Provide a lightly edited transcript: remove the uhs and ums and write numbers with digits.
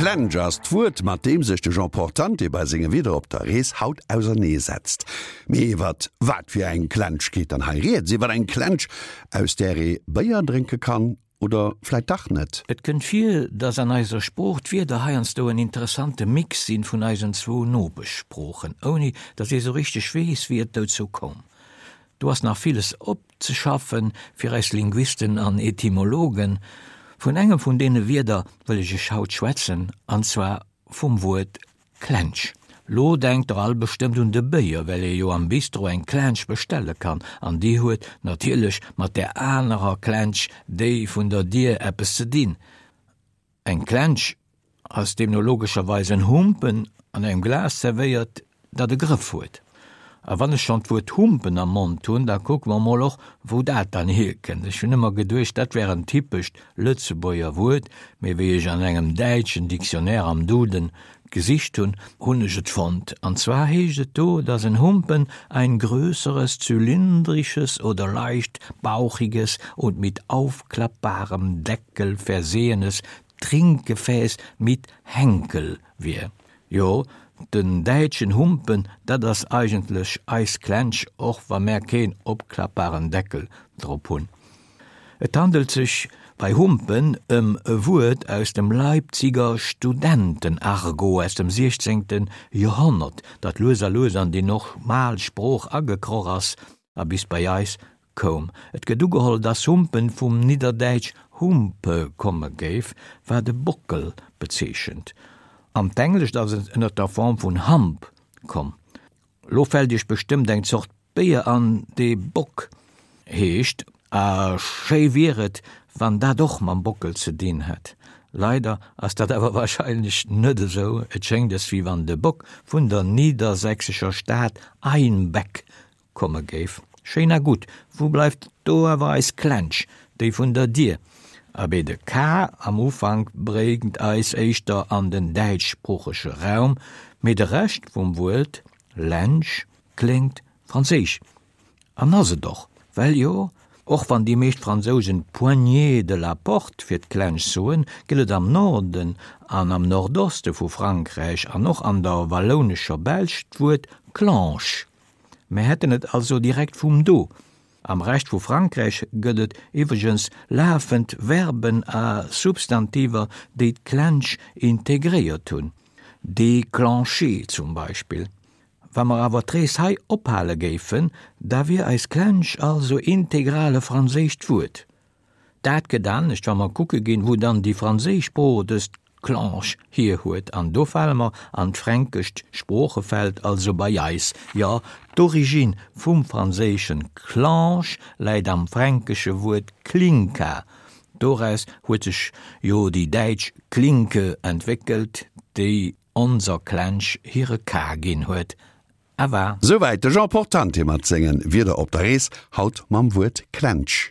Klensch ass d'Wuert, mat deem sech de Jean Portante bei senge Wieder op der Rees haut auserneesetzt. Mee iwwert wat fir eng Klensch geet dann hei rieds? Iwwer eng Klensch, aus där ee Béier drénke kann oder vläit dach net? Et kënnt vir, dass an eiser Sprooch d'Wierder heiansdo en interessante Mix sinn vun eisen zwou Nopeschsproochen, ouni dass ee sou richteg weess, wéi et dozou koum. Do ass nach villes opzeschaffen fir eis Linguisten an Etymologen. Vun engem vun deene Wierder wëll ech iech haut schwätzen, an zwar vum Wuert Klensch. Lo denkt der all bestëmmt un de Béier, well ee jo am Bistro eng Klensch bestelle kann, an déi huet natierlech mat där anerer Klensch, déi vun der Dier, eppes ze dinn. Eng Klensch ass deemno logescherweis en Humpen an engem Glas zerwéiert, dat e Grëff huet. A wann ech schonn d'Wuert Humpen am Mond hunn, da kucke mer mol och, wou dat dann hierkënnt. Ech hunn ëmmer geduecht, dat wär en typescht Lëtzebuerger Wuert, mee wéi ech an engem däitschen Dictionnaire am Duden gesicht hunn, hunn ech et fonnt. An zwar heescht et do, dass en Humpen ein größeres zylindrisches oder leicht bauchiges und mit aufklappbarem Deckel versehenes Trinkgefäß mit Henkel wier. Jo, den däitschen Humpen, dat ass eigentlech eis Klensch, och wa mär keen opklappbaren Deckel drop hunn. Et handelt sech bei Humpen ëm e Wuert aus dem Leipziger Studentenargot aus dem 16. Joerhonnert, dat lues a lues an déi normal Sprooch agekroch ass a bis bei eis koum. Et gëtt ugeholl, dass Humpen vum nidderdäitsch Humpe komme géif, wat e Bockel bezeechent. An d'Englescht ass et ënner der Form vun hump komm. Lo fält iech bestëmmt eng Zort Béier an, dee Bock heescht, a schéi wier et, wann dat och mam Bockel ze dinn hätt. Leider ass dat awer warscheinlech net esou, et schéngt es, wéi wann de Bock vun der niedersächsescher Stad Einbeck komme géif. Schéin a gutt, wou bleift do awer eis Klensch, déi vun der Dier? Abee, de K am Ufank bréngt eis éischter an den däitschsproochege Raum, mee de Rescht vum Wuert Lensch kléngt franséisch. An ass et och, well jo, och wann déi meescht Fransousen poignée de la porte fir d'Klensch soen, gëtt et am Norden an am Nordoste vu Frankräich an och an der wallounescher Belsch d'Wuert clanche. Mär hätten et also direkt vum do. Am Rescht vu Frankräich gëtt et iwwregens lafend Verben a Substantiver, déi d'Klensch integréiert hunn, déclencher zum Beispill. Wa mer awer d'Rees hei ophale géifen, da wier eis Klensch also integral e franséischt Wuert. Dat gëtt anescht, wa mer kucke ginn, wou dann déi franséisch Sprooch dëst Clanche hier huet. An do fale mer an d'fränkescht Sproochefeld, also bei eis. Jo, d'Origine vum franséischen Clanche läit am fränkesche Wuert Klinka. Doraus huet sech jo déi däitsch Klinke entwéckelt, déi onser Klensch hire K ginn huet. Awa. Souwäit de Jean Portante mat sengen Wieder op der Rees, haut mam Wuert Klensch.